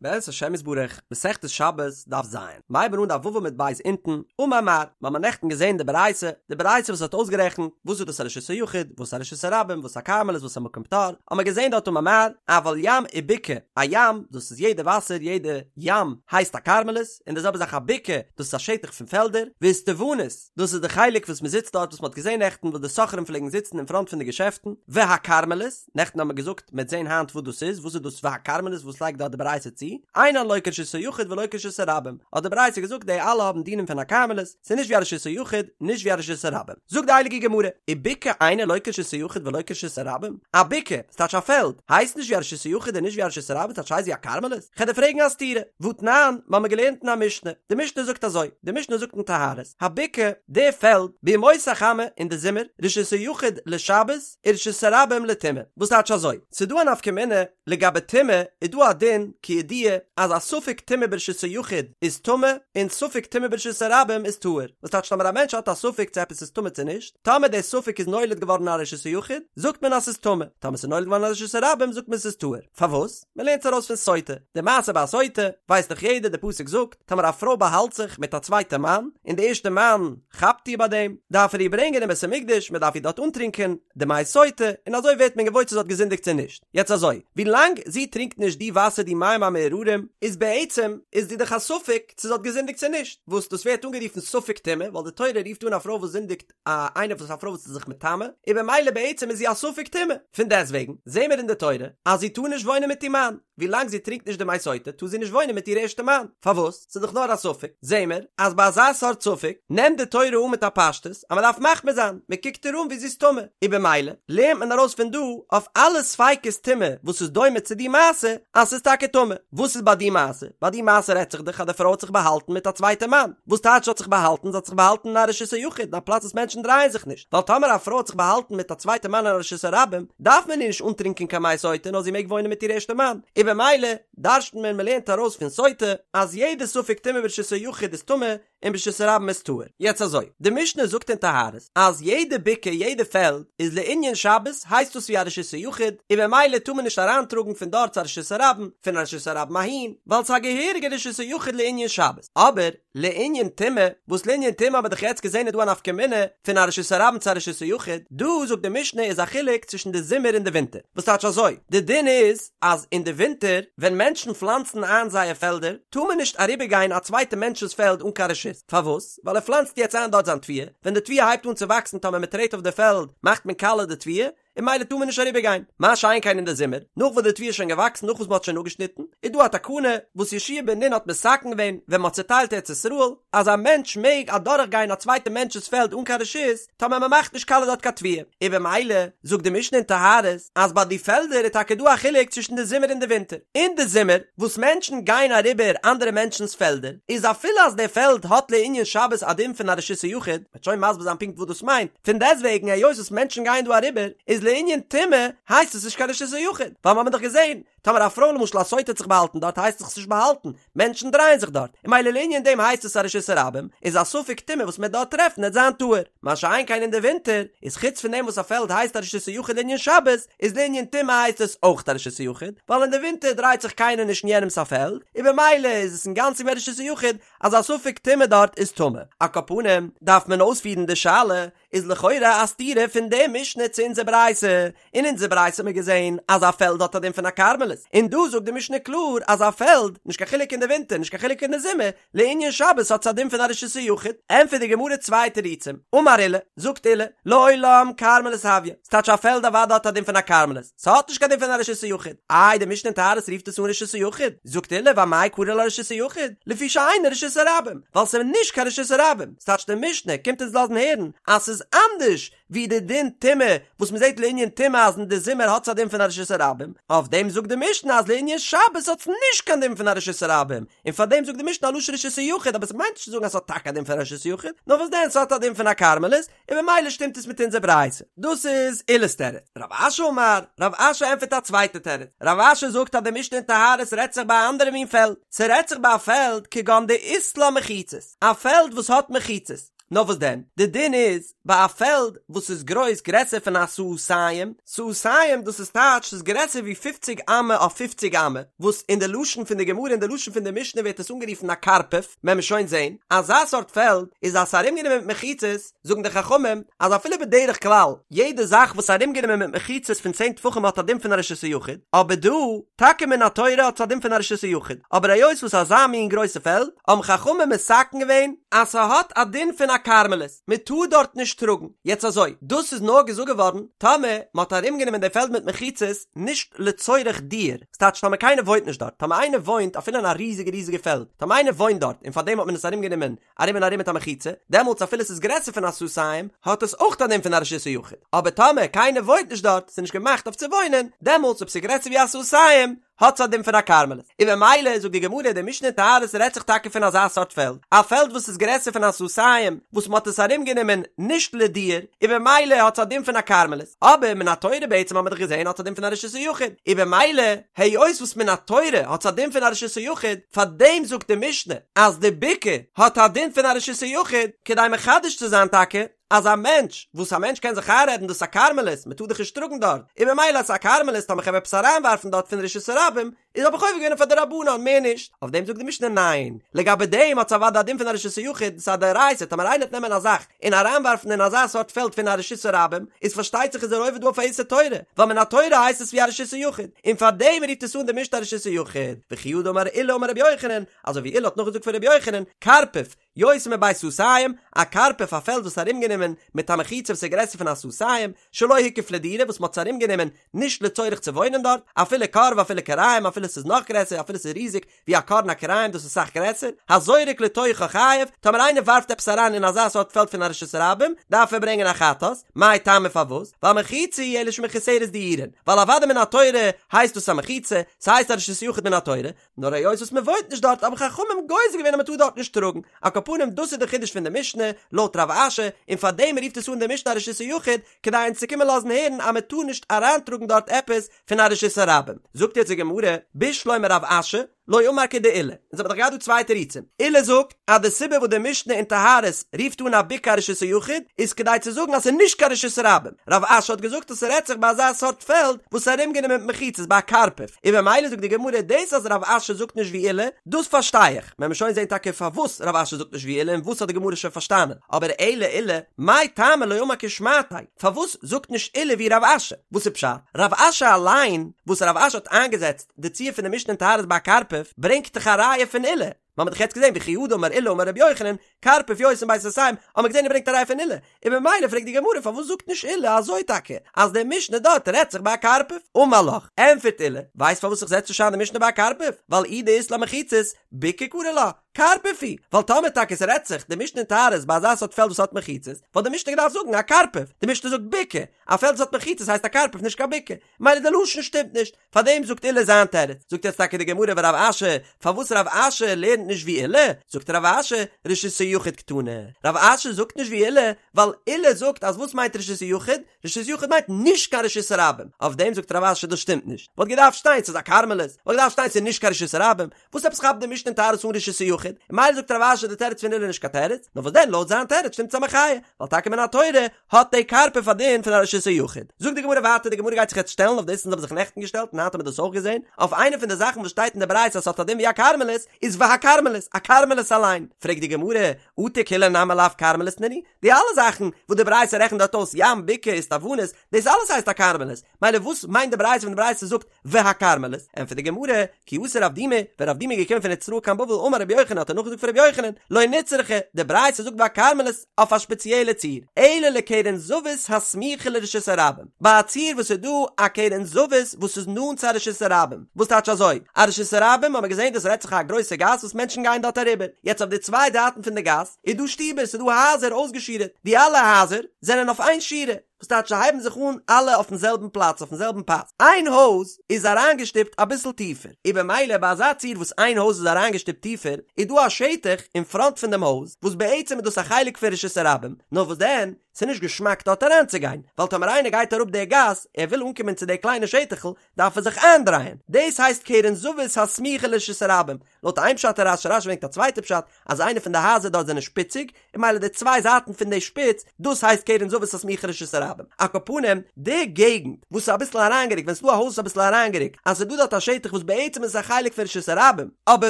בעזרת השם יתברך, מסכת שבת, דף ז, מ'הייבן אן דף ו' עמוד ב' אונטן, אמר מר, מ'האמער נעכטן געזען די ברייתא, די ברייתא וואס האט אויסגערעכנט, וואס איז דאס א רשות היחיד, וואס א רשות הרבים, וואס א כרמלית, וואס א מקום פטור, האמער געזען דארט אמר מר, אבל ים ובקעה, א ים, דאס איז יעדע וואסער, יעדע ים, הייסט א כרמלית, און די זעלבע זאך א בקעה, דאס איז א שטח פון פעלדער, ואיסטוונית, דאס איז די חלק וואס מ'זיצט דארט וואס מ'האט געזען נעכטן וואס די סוחרים פלעגן זיצן אין פראנט פון די געשעפטן, והכרמלית, נעכטן האבן מיר געזאגט מ'עט זען היינט וואס דאס איז, וואס איז דאס והכרמלית וואס לייגט דארט די ברייתא צו, אינן לא כרשות היחיד ולא כרשות הרבים, האט די ברייתא געזאגט די אלע האבן דינים פון א כרמלית, ס'איז נישט ווי א רשות היחיד, נישט ווי א רשות הרבים. זאגט די הייליגע גמרא, ובקעה אינה לא כרשות היחיד ולא כרשות הרבים, א בקעה, ס'טייטש א פעלד, הייסט נישט ווי א רשות היחיד און נישט ווי א רשות הרבים, ס'טייטש הייסט ווי א כרמלית? כ'על דיר פרעגן א סתירה, והתנן, מ'האמיר געלערנט אין א משנה, די משנה זאגט אזוי, די משנה זאגט אין טהרות, הבקעה, די פעלד, בימות החמה, אין די זומער, רשות היחיד לשבת, ורשות הרבים לטומאה. וואס טייטש אזוי? ס'איז דא א נפקא מינה לגבי טומאה, איז דא א דין כידוע אז א ספק טומאה ברשות היחיד איז טמא און ספק טומאה ברשות הרבים איז טהור. וואס טייטש טאמער א מענטש האט א ספק צו עפעס איז טמא צו נישט, טאמער דער ספק איז נולד געווארן אין א רשות היחיד זאגט מען אז ס'איז טמא, טאמער ס'איז נולד געווארן אין א רשות הרבים זאגט מען ס'איז טהור. פארוואס? מ'לערנט עס ארויס פון סוטה. די מעשה ביי א סוטה ווייסט דאך יעדער, די פסוק זאגט, טאמער א פרוי באהאלט זיך מיט א צווייטע מאן, און די ערשטע מאן כאפט איר ביי דעם, דארף ער איר ברענגען אין בית המקדש, מען דארף איר דארט אנטרינקען די מי סוטה, און אזוי ווערט מען געוואויר צו זי האט געזינדיגט צו נישט. יעצט אזוי, ווי לאנג זי טרינקט נישט די וואסער די מים המאררים, איז בעצם איז זי דאך א ספק צו זי האט געזינדיגט צו נישט, וואס דאס ווערט אנגערופן ספק טומאה, ווייל די תורה רופט אן א פרוי וואס זינדיגט א איינער וואס א פרוי וואס איז זיך מטמא, און במילא בעצם איז זי א ספק טומאה. פון דעסטוועגן זעהן מיר אין די תורה אז זי טאר נישט וואוינען מיט איר מאן, ווי לאנג זי טרינקט נישט די מי סוטה טאר זי נישט וואוינען מיט איר ערשטע מאן, פארוואס? ס'איז דאך נאר א ספק. זעהן מיר אז ביי אזא סארט ספק נעמט די תורה אן מיט א פשטות אז מ'דארף מחמיר זיין, מ'קוקט איר אן ווי זי איז טמא, און במילא לערנט מען ארויס פון דא אויף אלע ספיקות טומאה וואס איז דומה צו די מעשה אז ס'איז טאקע טמא. וואס איז ביי די מעשה? ביי די מעשה רעדט זיך דאך אז די פרוי האט זיך באהאלטן מיט א צווייטע מאן. וואס טייטש האט זיך באהאלטן? זי האט זיך באהאלטן אין א רשות היחיד, אין א פלאץ וואס מענטשן דרייען זיך נישט. ווייל טאמער א פרוי האט זיך באהאלטן מיט א צווייטע מאן אין א רשות הרבים, דארף מען איר נישט אנטרינקען קיין מי סוטה נאר זי מעג וואוינען מיט איר ערשטע מאן. און במילא דרש'נט מען, מ'לערנט ארויס פון סוטה, אז יעדע ספק טומאה ברשות היחיד איז טמא, און ברשות הרבים איז טהור. יעצט אזוי, די משנה זאגט אין טהרות אז יעדע בקעה יעדע פעלד איז לענין שבת הייסט דאס ווי א רשות היחיד און במילא טאר מען נישט אריינטראגן פון דארט צו א רשות הרבים, פון א רשות הרבים אהין, ווייל ס'איז א געהעריגע רשות היחיד לענין שבת. אבער לענין טומאה, וואס לענין טומאה האבן מיר דאך יעצט געזען איז דא א נפקא מינה פון א רשות הרבים צו א רשות היחיד, דא זאגט די משנה איז א חילוק צווישן די זומער און די ווינטער, וואס טייטש אזוי, די דין איז אז אין די ווינטער ווען מענטשן פלאנצן איין זייער פעלדער טאר מען נישט אריבער גיין א צווייטע מענטש'ס פעלד אן קיין רשות, פארוואס? ווייל ער פלאנצט יעצט איין דארט זיין תבואה, ווען די תבואה הייבט אן צו וואקסן טאמער מען טרעט אויף די פעלד מאכט מען קאלע די תבואה, און ממילא טאר מען נישט אריבער גיין, מה שאין כן אין די זומער, נאך וואס די תבואה איז שוין געוואקסן נאך וואס מען האט שוין אפגעשניטן, איז דא א תקנה וואס יהושע בן נון האט מתקן געווען ווען מען האט צוטיילט ארץ ישראל, אז א מענטש מעג אדורך גיין א צווייטע מענטש'ס פעלד אן קיין רשות, טאמער מען מאכט נישט קאלע דארט קיין תבואה, און במילא זאגט די משנה אין טהרות אז ביי די פעלדער איז טאקע דא א חילוק צווישן די זומער און די ווינטער, אין די זומער וואס מענטשן גייען אריבער אנדערע מענטשנ'ס פעלדער, איז אפילו אז די פעלד האט לענין שבת א דין פון א רשות היחיד, מ'וועט שוין מסביר זיין פונקט וואס דאס מיינט, פון דעסטוועגן היות וואס מענטשן גייען דא אריבער איז לענין טומאה הייסט עס נישט קיין רשות היחיד, ווייל מ'האמיר דאך געזען טאמער א פרוי למשל א סוטה האט זיך באהאלטן דארט הייסט זיך עס נישט באהאלטן, מענטשן דרייען זיך דארט, און ממילא לענין דעם הייסט עס א רשות הרבים, איז א ספק טומאה וואס מ'עט דארט טרעפן עט זיין טהור. מה שאין כן אין די ווינטער, איז חוץ פון דעם וואס א פעלד הייסט א רשות היחיד לענין שבת, איז לענין טומאה הייסט עס אויך א רשות היחיד, ווייל אין די ווינטער דרייט זיך קיינער נישט אין יענעמס א פעלד, און במילא איז עס אינגאנצן ווי א רשות היחיד, אז א ספק טומאה דארט איז טמא. על כל פנים, דארף מען אויספירן די שאלה, איז לכאורה א סתירה פון די משנה צו אונזער ברייתא, אין אונזער ברייתא האט מען געזען אז א פעלד האט א דין פון א כרמלית, און דא זאגט די משנה קלאר אז א פעלד, נישט קיין חילוק אין די ווינטער נישט קיין חילוק אין די זומער, לענין שבת האט עס א דין פון א רשות היחיד, ענטפערט די גמרא צוויי תירוצים, אמר עולא, זאגט עולא, לעולם כרמלית הויא, ס'טייטש א פעלד אוודאי האט א דין פון א כרמלית, ס'האט נישט קיין דין פון א רשות היחיד, איי די משנה אין טהרות רופט עס אן רשות היחיד, זאגט עולא ואמאי קרי לה רשות היחיד, לפי שאינה רשות הרבים, ווייל ס'איז נישט קיין רשות הרבים, ס'טייטש די משנה קומט אונז לאזן הערן אז ס'איז אנדערש ווי די דין טומאה וואס מ'זעט לענין טומאה אז אין די זומער האט עס א דין פון א רשות הרבים, אויף דעם זאגט די משנה אז לענין שבת האט עס נישט קיין דין פון א רשות הרבים, און פאר דעם זאגט די משנה א לשון רשות היחיד אבער ס'מיינט נישט צו זאגן אז ס'האט טאקע א דין פון א רשות היחיד, נאר וואס דען ס'האט א דין פון א כרמלית, און ממילא שטימט עס מיט אונזער ברייתא. דאס איז עולא'ס תירוץ. רב אשי אמר, רב אשי ענטפערט א צווייטע תירוץ. רב אשי זאגט אז די משנה אין טהרות רעדט זיך ביי א אנדערע מין פעלד. ס'רעדט זיך ביי א פעלד כגון דאית לה מחיצות. א פעלד וואס האט מחיצות. נאר וואס דען? די דין איז ביי א פעלד וואס איז גרויס גרעסער פון א סאתים, סאתים דאס איז טייטש ס'איז גרעסער ווי פופציג אמה אויף פופציג אמה, וואס אין די לשון פון די גמרא אין די לשון פון די משנה ווערט עס אנגערופן א קרפף, וועלן מיר שוין זעהן, אזא סארט פעלד איז אז ס'איז ארומגענומען מיט מחיצות, זאגן די חכמים אז אפילו בדרך כלל יעדע זאך וואס איז ארומגענומען מיט מחיצות פון צען טפחים האט א דין פון א רשות היחיד, אבער דא, טאקע מן התורה האט עס א דין פון א רשות היחיד, אבער היות וואס אזא מין גרויסע פעלד, האבן חכמים מתקן געווען אז ס'האט א דין פון א כרמלית, מ'טאר דארט נישט טראגן. יעצט אזוי, דאס איז נאר געזאגט געווארן טאמער מ'האט ארומגענומען די פעלד מיט מחיצות נישט לצורך דיור, ס'טייטש טאמער קיינער וואוינט נישט דארט, טאמער איינער וואוינט אפילו אין א ריזיגע ריזיגע פעלד, טאמער איינער וואוינט דארט און פארדעם האט מען עס ארומגענומען ארום און ארום מיט א מחיצה, דעמאלטס אפילו ס'איז גרעסער פון א סאתים, האט עס אויך א דין פון א רשות היחיד, אבער טאמער קיינער וואוינט נישט דארט, ס'איז נישט געמאכט אויף צו וואוינען, דעמאלטס אויב ס'איז גרעסער ווי א סאתים, האט עס א דין פון א כרמלית. און ממילא זאגט די גמרא, די משנה אין טהרות רעדט זיך טאקע פון אזא סארט פעלד, א פעלד וואס איז גרעסער פון א סאתים, וואס מ'האט עס ארומגענומען נישט לדיור, און במילא האט עס א דין פון א כרמלית, אבער מן התורה בעצם האט מען דאך געזען האט עס א דין פון א רשות היחיד, און במילא היות וואס מן התורה האט עס א דין פון א רשות היחיד, פאר דעם זאגט די משנה אז די בקעה האט א דין פון א רשות היחיד, כדי מחדש צו זיין טאקע אז א מענטש, וואס א מענטש קען זיך איינרעדן דאס איז א כרמלית, מען טאר דאך נישט טראגן דארט, און במילא אז ס'איז א כרמלית טאמער כ'וועל עפעס אריינווארפן דארט פון רשות הרבים, איז האב איך עובר געווען אויף א דרבנן, מער נישט. אויף דעם זאגט די משנה ניין, לגבי דעם האט עס אוודאי א דין פון א רשות היחיד, ס'איז א דאורייתא, טאמער איינער וועט נעמען א זאך און אריינווארפן אין אזא סארט פעלד פון א רשות הרבים, איז פארשטייט זיך איז ער עובר דא אויף א איסור תורה, ווייל מן התורה הייסט עס ווי א רשות היחיד, און פאר דעם רופט עס אן די משנה א רשות היחיד, וכי הא דאמר עולא אמר רבי יוחנן, אזוי ווי עולא האט נאכגעזאגט פון רבי יוחנן, קרפף, יותר מבית סאתים, א קרפף א פעלד וואס איז ארומגענומען מיט א מחיצה וואס איז גרעסער פון א סאתים, שלא הוקף לדירה וואס מ'האט עס ארומגענומען נישט לצורך צו וואוינען דארט, אפילו כור ואפילו כוריים אפילו ס'איז נאך גרעסער אפילו ס'איז ריזיג ווי א כור און א כוריים דאס איז אסאך גרעסער, הזורק לתוכה חייב, טאמער איינער ווארפט עפעס אריין אין אזא סארט פעלד פון א רשות הרבים דארף ער ברענגען א חטאת, מאי טעמא פארוואס? ווייל מחיצה היא אלא שמחוסרת דיורין, ווייל אוודאי מן התורה הייסט דאס א מחיצה, ס'הייסט א רשות היחיד מן התורה, נאר היות וואס מען וואוינט נישט דארט האבן חכמים גוזר געווען אז מען טאר דארט נישט טראגן, על כל פנים דאס איז די חידוש פון די משנה לויט רב אשי, און פאר דעם רופט עס אן די משנה א רשות היחיד, כדי אונז צו קומען לאזן הערן אז מען טאר נישט אריינטראגן דארט עפעס פון א רשות הרבים. זאגט יעצט די גמרא, בשלמא רב אשי, לא אמר כדעולא, אונז האבן דאך געהאט דא צוויי תירוצים, עולא זאגט אז די סיבה וואס די משנה אין טהרות רופט אן א בקעה א רשות היחיד איז כדי צו זאגן אז ס'איז נישט קיין רשות הרבים, רב אשי האט געזאגט אז ס'רעדט זיך ביי אזא סארט פעלד וואס איז ארומגענומען מיט מחיצות ביי א קרפף, און במילא זאגט די גמרא דאס אז רב אשי זאגט נישט ווי עולא, דאס פארשטיי איך, וועלן מיר שוין זען טאקע פארוואס רב אשי זאגט נישט ווי עולא און וואס האט די גמרא שוין פארשטאנען, אבער אלא עולא, מאי טעמא לא אמר כשמעתיה, פארוואס זאגט נישט עולא ווי רב אשי? וואס איז פשט? רב אשי אליין, וואס רב אשי האט איינגעזעצט די ציור פון די משנה אין טהרות ביי א קרפף, ברענגט דאך א ראיה פון עולא, מ'האט דאך יעצט געזען וכי הא דאמר עולא אמר רבי יוחנן, קרפף יותר מבית סאתים, האט מען געזען ער ברענגט א ראיה פון עולא, און ממילא פרעגט די גמרא פארוואס זאגט נישט עולא אזוי טאקע אז די משנה דארט רעדט זיך ביי א קרפף? אמר לך, ענפערט עולא, ווייסט פארוואס איך זעץ נישט איין די משנה ביי א קרפף? ווייל אי דאית לה מחיצות, בקעה קרי לה, קרפף היא, ווייל טאמער טאקע ס'רעדט זיך די משנה אין טהרות ביי אזא סארט פעלד וואס האט מחיצות, וואלט די משנה געדארפט זאגן א קרפף, די משנה זאגט בקעה, א פעלד וואס האט מחיצות הייסט א קרפף נישט קיין בקעה, ממילא די לשון שטימט נישט, פארדעם זאגט עולא זיין תירוץ, זאגט יעצט טאקע די גמרא ורב אשי, פארוואס רב אשי לערנט נישט ווי עולא, זאגט רב אשי, רשות היחיד קתני, רב אשי זאגט נישט ווי עולא, ווייל עולא זאגט אז וואס מיינט רשות היחיד, רשות יחיד מיינט נישט קיין רשות הרבים, אויף דעם זאגט רב אשי דאס שטימט נישט, וואלט געדארפט שטיין ס'איז א כרמלית, וואלט געדארפט שטיין ס'איז נישט קיין רשות הרבים, וואס עפעס כאפט די משנה אין טהרות אן רשות היחיד, און ממילא זאגט רב אשי די תירוץ פון עולא איז נישט קיין תירוץ, נאר וואס דען לויט זיין תירוץ שטימט עס א מחיה, ווייל טאקע מן התורה האט די קרפף א דין פון א רשות היחיד. זאגט די גמרא ווייטער, די גמרא גייט זיך יעצט שטעלן אויף דאס אונז האבן זיך נעכטן געשטעלט און היינט האבן מיר דאס אויך געזען, אויף איינע פון די זאכן וואס שטייט אין די ברייתא אז ס'האט א דין ווי א כרמלית, איז והכרמלית, א כרמלית אליין. פרעגט די גמרא, אטו כולהו נמי לאו כרמלית נינהו, די אלע זאכן וואס די ברייתא רעכנט דארט אויס ים, בקעה, איסטוונית, דאס אלעס הייסט א כרמלית, מילא וואס מיינט די ברייתא ווען די ברייתא זאגט והכרמלית? ענטפערט די גמרא, כי אתא רב דימי, ווען רב דימי איז געקומען פון ארץ ישראל קיין בבל אמר רבי יוחנן האט ער נאכגעזאגט פון רבי יוחנן, לא נצרכה, די ברייתא זאגט והכרמלית אויף א שפעציעלע ציור, אלא לקרן זווית הסמוכה לרשות הרבים, ביי א ציור וואס איז דא א קרן זווית וואס איז נאנט צו א רשות הרבים, וואס טייטש אזוי? א רשות הרבים האט מען געזען דאס רעדט זיך א גרויסע גאס וואס מענטשן גייען דארט אריבער, יעצט אויף די צוויי זייטן פון די גאס איז דא שטיבער, ס'איז דא הייזער אויסגעשורה'ט, די אלע הייזער זענען אויף איין שורה. וואס טייטש זיי הייבן זיך אן אלע אויפן זעלבן פלאץ אויפן זעלבן פאס, איין הויז איז אריינגעשטופט אביסל טיפער, און במילא ביי אזא ציור וואס איין הויז איז אריינגעשטופט טיפער, איז דא א שטח אין פראנט פון דעם הויז, וואס בעצם איז דאס א חלק פון רשות הרבים, נאר וואס דען, ס'איז נישט געשמאק דארט אריינצוגיין, ווייל טאמער איינער גייט אראפ די גאס, ער וויל אנקומען צו די קליינע שטח'ל, דארף ער זיך איינדרייען, דאס הייסט קרן זווית הסמוכה לרשות הרבים, לויט איין פשט אין רש"י, רש"י ברענגט א צווייטע פשט, אז איינע פון די הייזער דארט זענען שפיציג, און ממילא די צוויי זייטן פון די שפיץ, דאס הייסט קרן זווית הסמוכה לרשות הרבים. על כל פנים, די געגנט וואס איז אביסל אריינגערוקט, ווען ס'איז דא א הויז אביסל אריינגערוקט, אז ס'איז דא דארט א שטח וואס בעצם איז עס א חלק פון רשות הרבים, אבער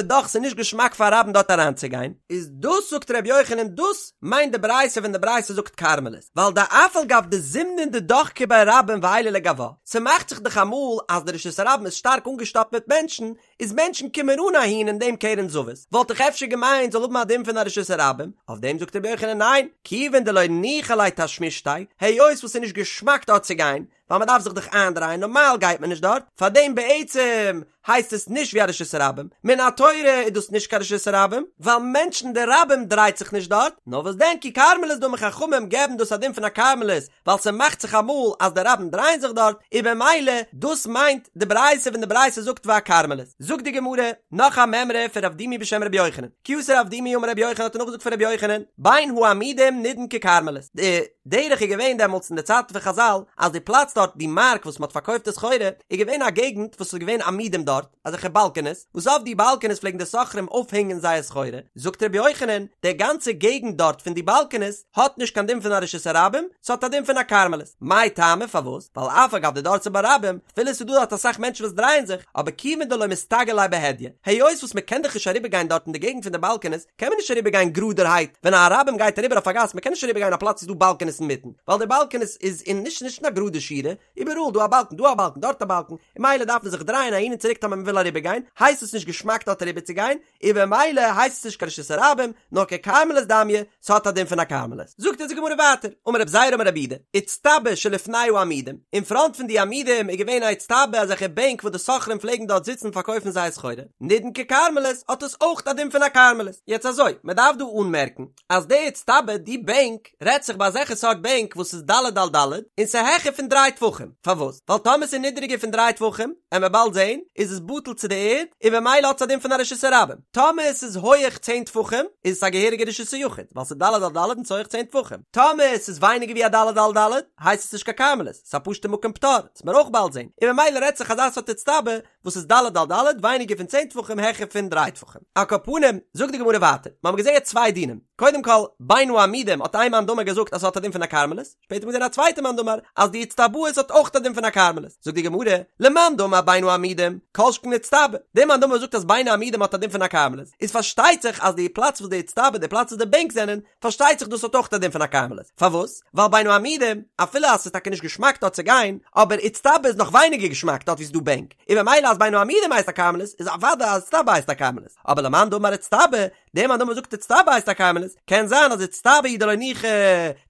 דאך ס'איז נישט געשמאק פאר רבים דארט אריינצוגיין, איז דאס זאגט ר' יוחנן דאס מיינט די ברייתא ווען די ברייתא זאגט כרמלית, ווייל דאף על גב דזימנין דדחקי ביה רבים ועיילי לגוה, ס'מאכט זיך דאך אמאל אז די רשות הרבים איז שטארק אנגעשטאפט מיט מענטשן, איז מענטשן קומען אן אהין אין דעם קרן זווית, וואלט איך אפשר געמיינט זאל האבן א דין פון א רשות הרבים, אויף דעם זאגט רבי יוחנן ניין, כיוון דלא ניחא ליה תשמישתיה, היות וואס ס'איז נישט געשמאק דארט צו גיין, ווייל מ'דארף זיך דאך איינדרייען, נארמאל גייט מען נישט דארט, פארדעם בעצם הייסט עס נישט ווי א רשות הרבים, מן התורה איז דאס נישט קיין רשות הרבים, ווייל מענטשן די רבים דרייט זיך נישט דארט, נאר וואס דען ככרמלית דמי חכמים געבן דאס א דין פון א כרמלית, ווייל ס'מאכט זיך אמאל אז די רבים דרייען זיך דארט, און במילא דאס מיינט די ברייתא ווען די ברייתא זאגט והכרמלית. זאגט די גמרא נאך א מימרא פון רב דימי בשם רבי יוחנן, כי אתא רב דימי אמר רבי יוחנן האט ער נאכגעזאגט פון רבי יוחנן, בין העמודים נידון ככרמלית, די דרך איז געווען דעמאלטס אין די צייטן פון חז"ל אז די פלאץ דארט די מארק וואס מ'האט פארקויפט די סחורה איז געווען א געגנט וואס איז געווען עמודים דארט, אזעלכע באלקענעס, וואס אויף די באלקענעס פלעגן די סוחרים אויפהענגען זייער סחורה, זאגט רבי יוחנן, די גאנצע געגנט דארט פון די באלקענעס האט נישט קיין דין פון א רשות הרבים, ס'האט א דין פון א כרמלית. מאי טעמא פארוואס? ווייל אף על גב דדרסי בה רבים, אפילו ס'איז דא דארט אסאך מענטשן וואס דרייען זיך, אבער כיוון דלא מסתגי ליה בהדיא, היות וואס מ'קען דאך נישט אריבערגיין דארט אין די געגנט פון די באלקענעס, קען מען נישט אריבערגיין גראדערהייט, ווען א רבים גייט אריבער אויף א גאס, מ'קען נישט אריבערגיין א פלאץ וואו ס'איז דא באלקענעס אינמיטן, ווייל די באלקענעס איז אין נישט נישט אין א גראדע שורה, איבעראל דא א באלקן דא א באלקן דארט א באלקן, און ממילא דארף מען זיך דרייען אהין און צוריק טאמער מען וויל אריבער גיין, הייסט עס נישט געשמאק דארט אריבער צו גיין, און במילא הייסט עס נישט קיין רשות הרבים, נאר ככרמלית דמיא, ס'האט א דין פון א כרמלית. זאגט אונז די גמרא ווייטער, אמר רב זירא אמר רב יהודה, איצטבא שלפני העמודים, אין פראנט פון די עמודים איז געווען א איצטבא אזעלכע בענק וואס די סוחרים פלעגן דארט זיצן פארקויפן זייער סחורה, נידון ככרמלית האט עס אויך א דין פון א כרמלית. יעצט אזוי, מען דארף דא אנמערקן, אז די איצטבא, די בענק, רעדט זיך ביי אזעלכע סארט בענק וואס איז ד' על ד' און ס'איז העכער פון דריי טפחים, פארוואס? ווייל טאמער ס'איז נידעריגער פון דריי טפחים, עמער באלד זעהן, איז עס בטל צו די ערד, און במילא האט עס א דין פון א רשות הרבים. טאמער עס איז הויעך צען טפחים, איז עס א געהעריגע רשות היחיד, ווייל ס'איז ד' על ד' און ס'איז הויעך צען טפחים. טאמער עס איז ווייניגער ווי א ד' על ד', הייסט עס נישט קיין כרמלית, ס'איז א פשוטע מקום פטור, וועט מען אויך באלד זעהן, און במילא רעדט זיך אזא סארט איצטבא וואס איז ד' על ד' ווייניגער פון צען טפחים העכער פון דריי טפחים. על כל פנים, זאגט די גמרא ווייטער, מיר האבן געזען יעצט צוויי דינים, קודם כל, בין העמודים האט איין מאן דאמר געזאגט אז ס'האט א דין פון א כרמלית, שפעטער האט מען געזען א צווייטע מאן דאמר אז די איצטבאות האט אויך א דין פון א כרמלית, זאגט די גמרא, למאן דאמר בין העמודים, כל שכן איצטבא, דער מאן דאמר וואס זאגט אז בין העמודים האט א דין פון א כרמלית, איז פארשטייט זיך אז די פלאץ וואס די איצטבא, די פלאץ וואס די בענק זענען, פארשטייט זיך דאס האט אויך א דין פון א כרמלית, פארוואס? ווייל בין העמודים, אפילו אז ס'איז טאקע נישט געשמאק דארט צו גיין, אבער איצטבא איז נאך ווייניגער געשמאק דארט וואו ס'איז דא בענק, און ממילא אז בין העמודים הייסט א כרמלית, איז אוודאי אז איצטבא הייסט א כרמלית, אבער למאן דאמר איצטבא, דער מאן דאמר זאגט איצטבא הייסט א כרמלית, קען זיין אז איצטבא הוא דלא ניחא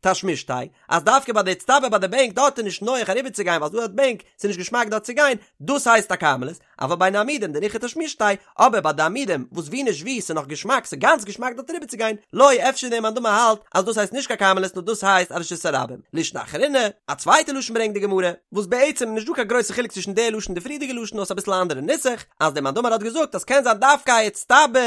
תשמישתיה, אז דווקא ביי די איצטבא ביי די בענק דארט איז נישט נוח אריבערצוגיין ווייל ס'איז דא דארט בענק, ס'איז נישט געשמאק דארט צו גיין, דאס הייסט א כרמלית, אבל בין העמודים דניחא תשמישתיה, אבער ביי די עמודים וואס ווי נישט ווי ס'איז נאך געשמאק ס'איז גאנץ געשמאק דארט אריבער צו גיין, לא אפשר דער מאן דאמר האלט אז דאס הייסט נישט קיין כרמלית נאר דאס הייסט א רשות הרבים. לישנא אחרינא, א צווייטע לשון ברענגט די גמרא, וואס בעצם איז נישט דא קיין גרויסע חילוק צווישן די לשון און די פריערדיגע לשון נאר ס'איז אביסל א אנדערע נוסח, אז דער מאן דאמר האט געזאגט אז קען זיין דווקא א איצטבא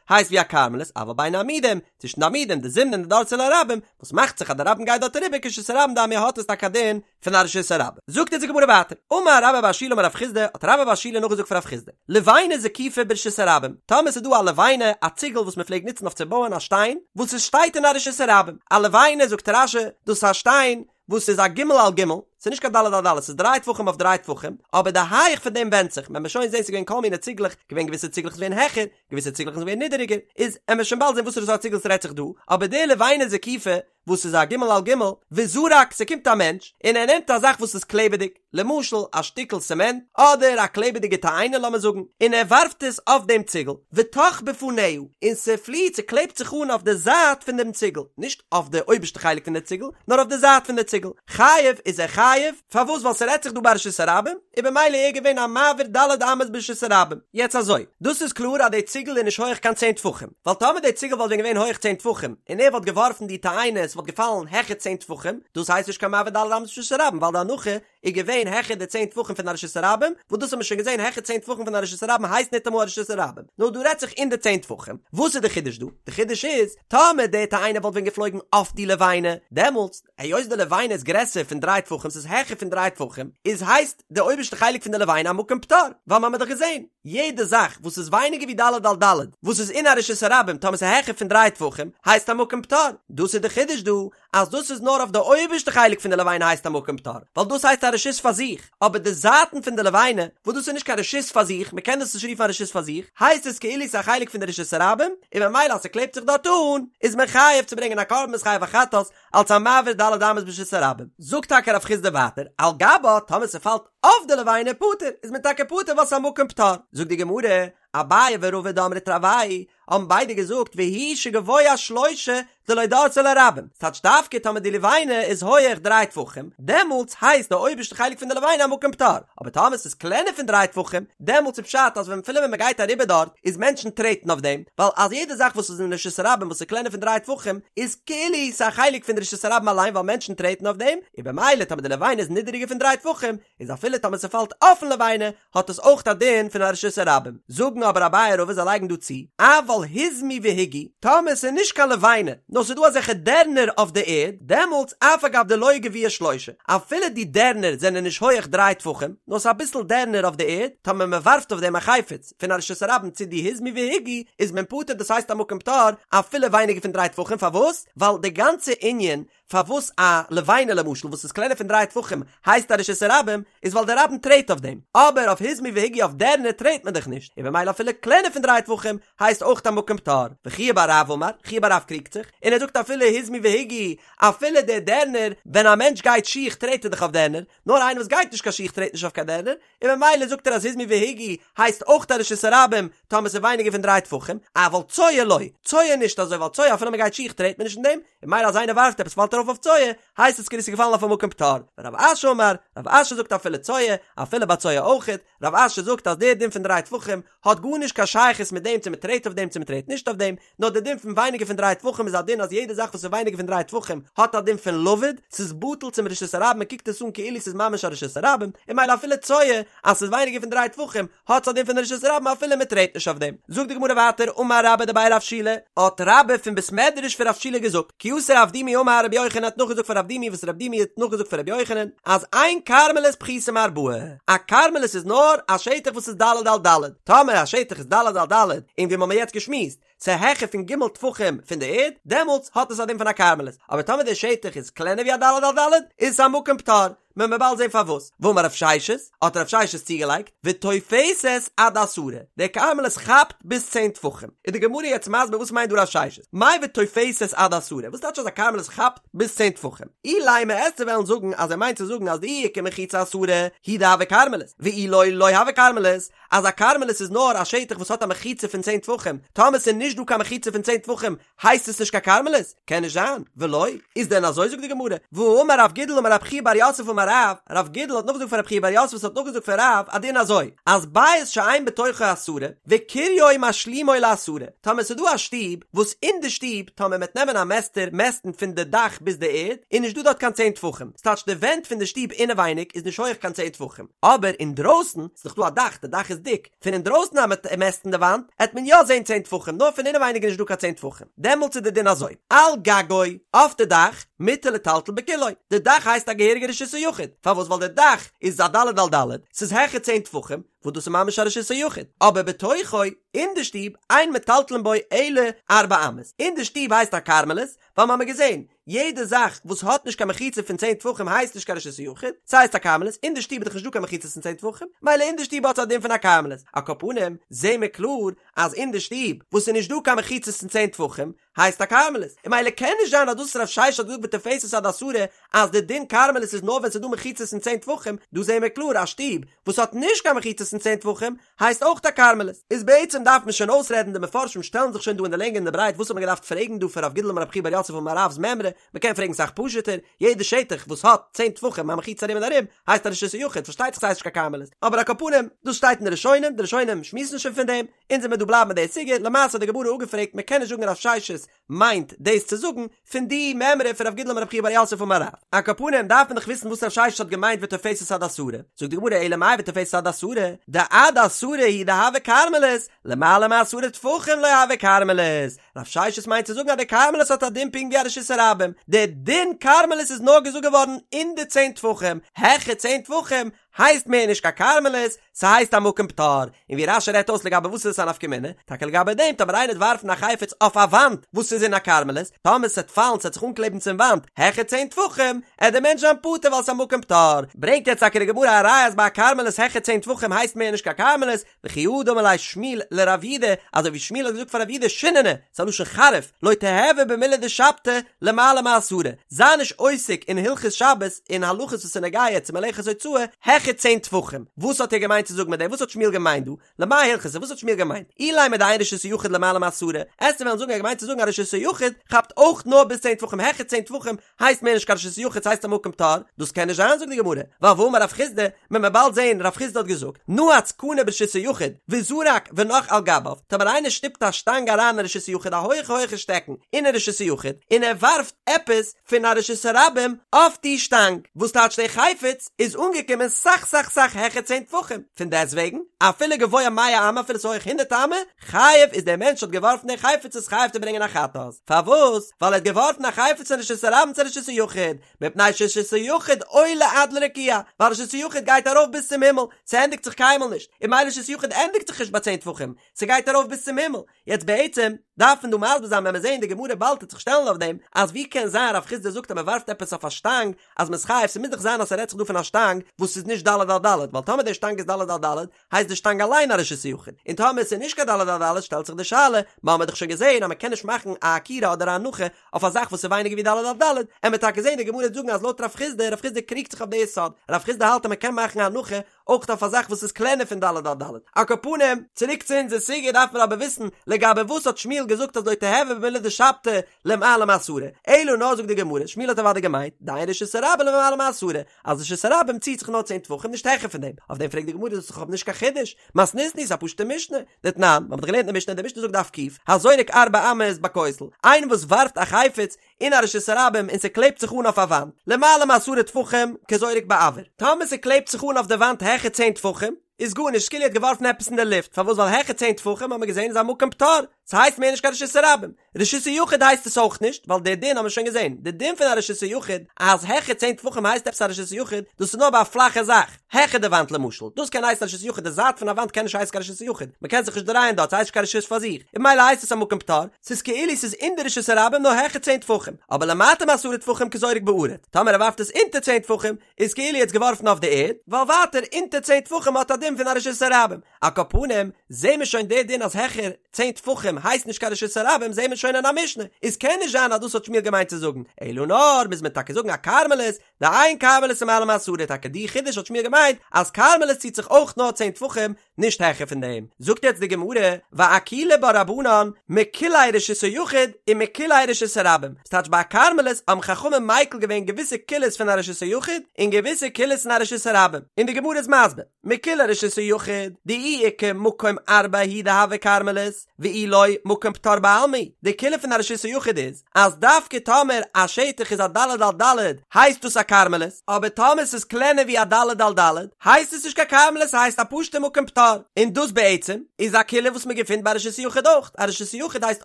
הייסט ווי א כרמלית אבל בין העמודים, צווישן די עמודים דזימנין דדרסי ליה רבים, וואס מאכט זיך אז די רבים גייט דארט אריבער כרשות הרבים דמיא האט עס טאקע א דין פון א רשות הרבים. זאגט אונז די גמרא ווייטער, אמר רבה בר שילא אמר רב חסדא, האט רבה בר שילא נאכגעזאגט פון רב חסדא, לבנה זקופה ברשות הרבים, טאמער ס'איז דא א לבנה, א ציגל וואס מ'פלעגט נוצן אויף צו בויען א שטיין, וואס עס שטייט אין א רשות הרבים, א לבנה זאגט רש"י, דאס איז א שטיין וואס איז א ג' על ג', ס'איז נישט קיין ד' על ד', ס'איז דריי טפחים אויף דריי טפחים, אבער די הייך פון דעם ווענדט זיך, וועט מען שוין זען ס'איז געווען כל מיני ציגלעך, געווען געוויסע ציגלעך איז געווען העכער, געוויסע ציגלעך איז געווען נידעריגער, איז עמער שוין באלד זען וואסערע סארט ציגל ס'רעדט זיך דא, אבער די לבנה זקופה, וואס איז א ג' על ג', וזרק, ס'קומט א מענטש, און ער נעמט א זאך וואס איז קלעבעדיג, למשל א שטיקל סעמענט, אדער א קלעבעדיגע תאנה לאמיר זאגן, און ער ווארפט עס אויף דעם ציגל, ותך בפניה, און ס'פליעט, ס'קלעבט זיך אן אויף די זייט פון דעם ציגל, נישט אויף די אויבערשטע חלק פון די ציגל, נאר אויף די זייט פון די ציגל, חייב, איז ער חייב, פארוואס ווייל ס'רעדט זיך דא ביי רשות הרבים, און במילא איז ער געווען א מעביר ד' אמות ברשות הרבים. יעצט אזוי, דאס איז קלאר אז די ציגל איז נישט הויעך קיין צען טפחים, ווייל טאמער די ציגל וואלט ווען געווען הויעך צען טפחים, און ער וואלט געווארפן די תאנה, עס וואלט. ס'וואלט געפאלן העכער צען טפחים, דאס הייסט נישט קיין מעביר ד' אמות ברשות הרבים ווייל די הנחה איז געווען העכער די צען טפחים פון א רשות הרבים, וואס דאס האט מען שוין געזען העכער צען טפחים פון א רשות הרבים הייסט ניטאמאל א רשות הרבים, נאר דא רעדט זיך אין די צען טפחים, וואס איז די חידוש דא? די חידוש איז, טאמער די תאנה וואלט ווען געפלויגן אויף די לבנה, דעמאלטס, היות די לבנה איז גרעסער פון דריי טפחים ס'איז העכער פון דריי טפחים, איז הייסט די אויבערשטע חלק פון די לבנה א מקום פטור, ווייל מ'האמיר דאך געזען, יעדע זאך וואס איז ווייניגער ווי ד' על ד' וואס איז אין א רשות הרבים טאמער ס'איז העכער פון דריי טפחים הייסט א מקום פטור, דאס איז די חידוש דא, אז דאס איז נאר אויף די אויבערשטע חלק פון די לבנה הייסט א מקום פטור, ווייל דאס הייסט א רשות פאר זיך, אבער די זייטן פון די לבנה, וואס דאס איז נישט קיין רשות פאר זיך, מ'קען דאס נישט רופן א רשות פאר זיך, הייסט עס כאילו ס'איז א חלק פון די רשות הרבים, און ממילא אז ס'קלעבט זיך דארט אן, איז מען חייב צו ברענגען א קרבן מ'איז חייב א חטאת, אלס א מעביר ד' אמות ברשות הרבים. זאגט טאקע רב חסדא ווייטער, על גבה, טאמער ס'פאלט אויף די לבנה פטור, איז מען טאקע פטור ווייל ס'איז א מקום פטור. זאגט די גמרא, אביי ורבא דאמרי תרוייהו האבן ביידע געזאגט והוא שגבוה שלושה דלא דרסיה לרבים, ס'טייטש דווקא טאמער די לבנה איז הויעך דריי טפחים, דעמאלטס הייסט די אויבערשטע חלק פון די לבנה א מקום פטור, אבער טאמער ס'איז קלענער פון דריי טפחים, דעמאלטס איז פשט אז ווען אפילו ווען מ'גייט אריבער דארט, איז מענטשן טרעטן אויף דעם, ווייל אז יעדע זאך וואס איז אין רשות הרבים וואס איז קלענער פון דריי טפחים, איז כאילו ס'איז א חלק פון די רשות הרבים אליין ווייל מענטשן טרעטן אויף דעם, און במילא טאמער די לבנה איז נידעריגער פון דריי טפחים, איז אפילו טאמער ס'פאלט אויפן לבנה, האט עס אויך א דין פון א רשות הרבים. זאגן אבער אביי ורבא זיי לייגן דא צו, אבל היזמו והיגו, טאמער ס'איז נישט קיין לבנה, נאר ס'איז דא אזעלכע דערנער אויף די ערד, דעמאלטס אף על גב דלא גביהי שלושה, אפילו די דערנער זענען נישט הויעך דריי טפחים, נאר ס'איז אביסל דערנער אויף די ערד, טאמער מ'ווארפט אויף דעם א חפץ פון א רשות הרבים צו די היזמו והיגו, איז מען פטור דאס הייסט א מקום פטור אפילו ווייניגער פון דריי טפחים, פארוואס? ווייל די גאנצע ענין פארוואס א לבנה למשל וואס איז קלענער פון דריי טפחים הייסט א רשות הרבים איז ווייל די רבים טרעט אויף דעם, אבער אויף היזמו והיגו אויף דערנער טרעט מען דאך נישט, און במילא אפילו קלענער פון דריי טפחים הייסט אויך א מקום פטור. וחייא בר רב אמר, חייא בר רב קריגט זיך, און ער זאגט אפילו היזמו והיגו, אפילו די דערנער, ווען א מענטש גייט שיך טרעט ער דאך אויף דערנער, נאר איינער וואס גייט נישט קיין שיך טרעט נישט אויף קיין דערנער, און ממילא זאגט ער אז היזמו והיגו הייסט אויך א רשות הרבים טאמער ס'איז ווייניגער פון דריי טפחים, אבל צואה לא, צואה נישט אזוי ווייל צואה אפילו מ'גייט שיך טרעט מען נישט אין דעם, און ממילא אז איינער ווארפט עפעס פאלט ארויף אויף צואה, הייסט עס כאילו ס'איז געפאלן אויף א מקום פטור. ורב אשי אמר, רב אשי זאגט אפילו צואה, אפילו ביי צואה אויכעט, רב אשי זאגט אז דער דין פון דריי טפחים האט גארנישט קיין שייכות מיט דעם צו מ'טרעט אויף דעם צו מ'טרעט נישט אויף דעם, נאר דער דין פון ווייניגער פון דריי טפחים איז א דין אז יעדע זאך וואס איז ווייניגער פון דריי טפחים האט א דין פון לבוד, ס'איז בטל צום רשות הרבים מ'קוקט עס אן כאילו ס'איז ממש א רשות הרבים, און ממילא אפילו צואה אז ס'איז ווייניגער פון דריי טפחים האט עס א דין פון רשות הרבים אפילו מ'טרעט נישט אויף דעם. זאגט די גמרא ווייטער אמר רבה דבי רב שילא, האט רבה פון בית מדרש פון רב שילא געזאגט, כי אתא רב דימי אמר רבי יוחנן האט נאכגעזאגט פון רב דימי וואס רב דימי האט נאכגעזאגט פון רבי יוחנן אז אין כרמלית פחותה מארבעה, א כרמלית איז נאר א שטח וואס איז ד' על ד', טאמער א שטח איז ד' על ד' און ווי מ'האמיר יעצט געשמועסט ס'איז העכער פון ג' טפחים פון די ערד, דעמאלטס האט עס א דין פון א כרמלית, אבער טאמער די שטח איז קלענער ווי א ד' על ד' איז עס א מקום פטור, מען וועט באלד זען פארוואס. ואמר רב ששת, האט רב ששת צוגעלייגט, ותופסת עד עשרה, די כרמלית כאפט ביז צען טפחים. איז די גמרא יעצט מסביר וואס מיינט דא רב ששת, מאי ותופסת עד עשרה, וואס טייטש אז א כרמלית כאפט ביז צען טפחים? אילימא וועסטו וועלן זאגן אז ער מיינט צו זאגן אז דאי איכא מחיצה עשרה, הוא דהוי כרמלית, ואי לא לא הוי כרמלית, אז א כרמלית איז נאר א שטח וואס האט א מחיצה פון צען טפחים, טאמער ס'איז נישט דא קיין מחיצה פון צען טפחים הייסט עס נישט קיין כרמלית? קען נישט זיין, ולא, איז דען אזוי זאגט די גמרא, והאמר רב גידל אמר רב חייא בר יוסף אמר רב, רב גידל האט נאכגעזאגט פון רב חייא בר יוסף וואס האט נאכגעזאגט פון רב א דין אזוי, אז בית שאין בתוכו עשרה, וקיריו משלימו לעשרה, טאמער ס'איז דא א שטוב, וואס אין די שטוב, טאמער מ'עט נעמען א מעסטער מעסטן פון די דאך ביז די ערד, איז נישט דא דארט קיין צען טפחים, ס'טייטש די ווענט פון די שטוב אינעווייניג איז נישט הויעך קיין צען טפחים, אבער אינדרויסן, ס'איז דאך דא א דאך, די דאך איז דיק, פון אינדרויסן אז מ'עט מעסטן די וואנט, עט מען יא זען צען טפחים, נאר פון אינעווייניג איז נישט דא קיין צען טפחים. דעמאלטס איז די דין אזוי, על גגו, אויף די דאך, מותר לטלטל בכולו, די דאך הייסט א געהעריגע רשות היחיד, פארוואס ווייל די דאך איז א ד' על ד', ס'איז העכער צען טפחים, וואס דאס איז ממש א רשות היחיד, אבער בתוכו, אין די שטוב, אין מטלטלין בו אלא ארבע אמות, אין די שטוב הייסט א כרמלית, ווייל מ'האמיר געזען, יעדע זאך וואס האט נישט קיין מחיצה פון צען טפחים הייסט נישט קיין רשות היחיד, ס'הייסט א כרמלית, אין די שטוב איז דאך נישט דא קיין מחיצות פון צען טפחים, מילא אין די שטוב האט עס א דין פון א כרמלית, על כל פנים זעהן מיר קלאר אז אין די שטוב וואס איז נישט דא קיין מחיצות פון צען טפחים הייסט א כרמלית, און מילא קען נישט זיין אז דאס וואס רב ששת האט געזאגט ותופסת עד עשרה אז די דין כרמלית איז נאר ווען ס'איז דא מחיצות פון צען טפחים, דא זעהן מיר קלאר א שטוב וואס האט נישט קיין מחיצות. מחיצות פון צען טפחים, הייסט אויך א כרמלית. איז בעצם דארף מען שוין אויסרעדן, די מפרשים שטעלן זיך שוין דא אין די לענג און די ברייט וואס האט מען געדארפט פרעגן דא פון רב גידל אמר רב חייא בר יוסף אמר רב'ס מימרא, מען קען פרעגן סאך פשוט'ער, יעדע שטח וואס האט צען טפחים א מחיצה ארום און ארום הייסט א רשות היחיד, פארשטייט זיך ס'הייסט נישט קיין כרמלית, אבער על כל פנים, דאס שטייט אין די ראשונים, די ראשונים שמועסן שוין פון דעם, אונז וועמיר דא בלייבן מיט די סוגיא, למעשה האט די גמרא אפגעפרעגט מען קען נישט זאגן רב ששת מיינט דאס צו זאגן פון די מימרא פון רב גידל אמר רב חייא בר יוסף אמר רב. על כל פנים דארף מען דאך וויסן וואס רב ששת האט געמיינט ותופסת עד עשרה, זאגט די גמרא אלא מאי ותופסת עד עשרה, דעד עשרה הוא דהוי כרמלית, למעלה מעשרה טפחים לא הוי כרמלית, רב ששת מיינט צו זאגן אז די כרמלית האט א דין פונקט ווי א רשות הרבים, די דין כרמלית איז נאר געזאגט געווארן אין די צען טפחים, העכער צען טפחים הייסט מער נישט קיין כרמלית, ס'הייסט א מקום פטור, און ווי רש"י רעדט אויס לגבי וואס איז עס א נפקא מינה, טאקע לגבי דעם טאמער איינער וועט ווארפן א חפץ אויף א וואנט וואס איז אין א כרמלית, טאמער ס'עט פאלן ס'עט זיך אנקלעבן צום וואנט העכער צען טפחים, עט דער מענטש זיין פטור ווייל ס'איז א מקום פטור. ברענגט יעצט טאקע די גמרא א ראיה אז ביי א כרמלית העכער צען טפחים הייסט מער נישט קיין כרמלית, וכי הא דאמר ליה שמואל לרב יהודה, אזוי ווי שמואל האט געזאגט פאר רב יהודה שיננא, ס'איז א לשון חריף, לא תיהוי במילי דשבתא למעלה מעשרה, זיי נישט עוסק אין הלכות שבת און הלכות וואס איז נוגע צו מלאכת הוצאה העכער צען טפחים, וואס האט ער געמיינט צו זאגן מיט דעם, וואס האט שמואל געמיינט דא, למאי הלכתא, וואס האט שמואל געמיינט, אילימא דאין רשות היחיד למעלה מעשרה, עסטו וועלן זאגן ער האט געמיינט צו זאגן אז רשות היחיד כאפט אויך נאר ביז צען טפחים העכער צען טפחים הייסט מער נישט קיין רשות היחיד ס'הייסט א מקום פטור, דאס קען נישט זיין זאגט די גמרא, ווייל והאמר רב חסדא, מען וועט באלד זעהן רב חסדא האט געזאגט, נעץ קנה ברשות היחיד, וזרק ונח על גביו, טאמער איינער שטופט א שטאנג אריין אין רשות היחיד א הויכע הויכע שטעקן אין רשות היחיד, און ער ווארפט עפעס פון א רשות הרבים אויף די שטאנג, וואס טייטש די חפץ איז אנגעקומען סאך סאך סאך העכער צען טפחים, פון דעסטוועגן אפילו גבוה מאה אמה אפילו ס'איז הויך הונדערט אמה, חייב איז דער מענטש האט געווארפן די חפץ איז חייב צו ברענגען א חטאת, פארוואס? ווייל ער האט געווארפן א חפץ פון רשות הרבים צו רשות היחיד, מפני שרשות היחיד עולה עד לרקיע, ווייל רשות היחיד גייט ארויף ביז צום הימל, ס'ענדיגט זיך קיינמאל נישט, און ממילא רשות היחיד ענדיגט זיך נישט ביי צען טפחים, ס'גייט ארויף ביז צום הימל. יעצט בעצם דארף מען דא מסביר זיין ווען מיר זעען די גמרא באלד טוט זיך שטעלן אויף דעם, אז ווי קען זיין רב חסדא זאגט אז מ'ווארפט עפעס אויף א שטאנג אז מ'איז חייב, ס'מוז דאך זיין אז ס'רעדט זיך דא פון א שטאנג וואס איז נישט ד' על ד', ווייל טאמער די שטאנג איז ד' על ד' הייסט די שטאנג אליין א רשות היחיד, און טאמער עס איז נישט קיין ד' על ד' שטעלט זיך די שאלה, מ'האמיר דאך שוין געזען אז מ'קען נישט מאכן א עקירה אדער א הנחה אויף א זאך וואס איז ווייניגער ווי ד' על ד', עמיר טאקע זען די גמרא וועט זאגן אז לויט רב חסדא, רב חסדא קריגט זיך אויף די יסוד, רב חסדא האלט אז מ'קען מאכן א הנחה אויך אויף א זאך וואס איז קלענער פון ד' על ד'. על כל פנים, צוריק צו אונזער סוגיא דארף מען אבער וויסן לגבי וואס האט שמואל געזאגט אז לא תיהוי במילי דשבתא למעלה מעשרה, אלא נאר זאגט די גמרא, שמואל האט אוודאי געמיינט, דאין רשות הרבים למעלה מעשרה, אז רשות הרבים ציט זיך נאר צען טפחים נישט העכער פון דעם, אויף דעם פרעגט די גמרא דאס איז דאך נישט קיין חידוש, מתניתין איז א פשוטע משנה, דתנן, מ'האט דאך געלערנט אין די משנה, די משנה זאגט דף ק', הזורק ארבע אמות בכותל, איינער וואס ווארפט א חפץ אין א רשות הרבים און ס'קלעבט זיך אן אויף א וואנט, למעלה מעשרה טפחים כזורק באויר, טאמער ס'קלעבט זיך אן אויף די וואנט העכער צען טפחים, איז גארנישט, כאילו ער האט געווארפן עפעס אין די לופט, פארוואס ווייל העכער צען טפחים האט מען געזען איז א מקום פטור, ס'הייסט מער נישט קיין רשות הרבים. רשות היחיד הייסט עס אויך נישט, ווייל די דין האבן מיר שוין געזען, די דין פון א רשות היחיד אז העכער צען טפחים הייסט עפעס א רשות היחיד, דאס איז נאר ביי א פלאכע זאך, העכער די וואנט למשל, דאס קען הייסן א רשות היחיד, די זייט פון א וואנט קען נישט הייסן קיין רשות היחיד, מען קען זיך נישט דרייען דארט, ס'הייסט נישט קיין רשות פאר זיך, און ממילא הייסט עס א מקום פטור, ס'איז כאילו ס'איז אין די רשות הרבים נאר העכער צען טפחים, אבער למטה מעשרה טפחים כזורק בארץ, טאמער ער ווארפט עס אונטער צען טפחים, איז כאילו ער האט עס געווארפן אויף די ערד, ווייל ווייטער אונטער צען טפחים האט א דין פון א רשות הרבים. על כל פנים, זעהן מיר שוין די דין אז העכער צען טפחים הייסט נישט קיין רשות הרבים זעהן מיר שוין אין א משנה, איז קען נישט זיין אז דאס האט שמואל געמיינט צו זאגן, אלא נאר מוז מען טאקע זאגן א כרמלית, דאין כרמלית למעלה מעשרה טאקע די חידוש האט שמואל געמיינט אז כרמלית ציט זיך אויך נאר צען טפחים נישט העכער פון דעם, זאגט יעצט די גמרא, ואקילו בה רבנן מקולי רשות היחיד ומקולי רשות הרבים, ס'טייטש ביי א כרמלית האבן חכמים מיקל געווען געוויסע קולות פון א רשות היחיד און געוויסע קולות פון א רשות הרבים, און די גמרא איז מסביר. מקולי רשות היחיד, דאי איכא מקום ארבע הוא דהוי כרמלית, ואי לא, מקום פטור בעלמא הוא. די קולא פון א רשות היחיד איז, אז דווקא טאמער א שטח איז א ד' על ד' הייסט דאס א כרמלית, אבער טאמער ס'איז קלענער ווי א ד' על ד' הייסט עס נישט קיין כרמלית ס'הייסט א פשוטע מקום פטור. און דאס בעצם איז א קולא וואס מ'געפינט ביי רשות היחיד אויך, א רשות היחיד הייסט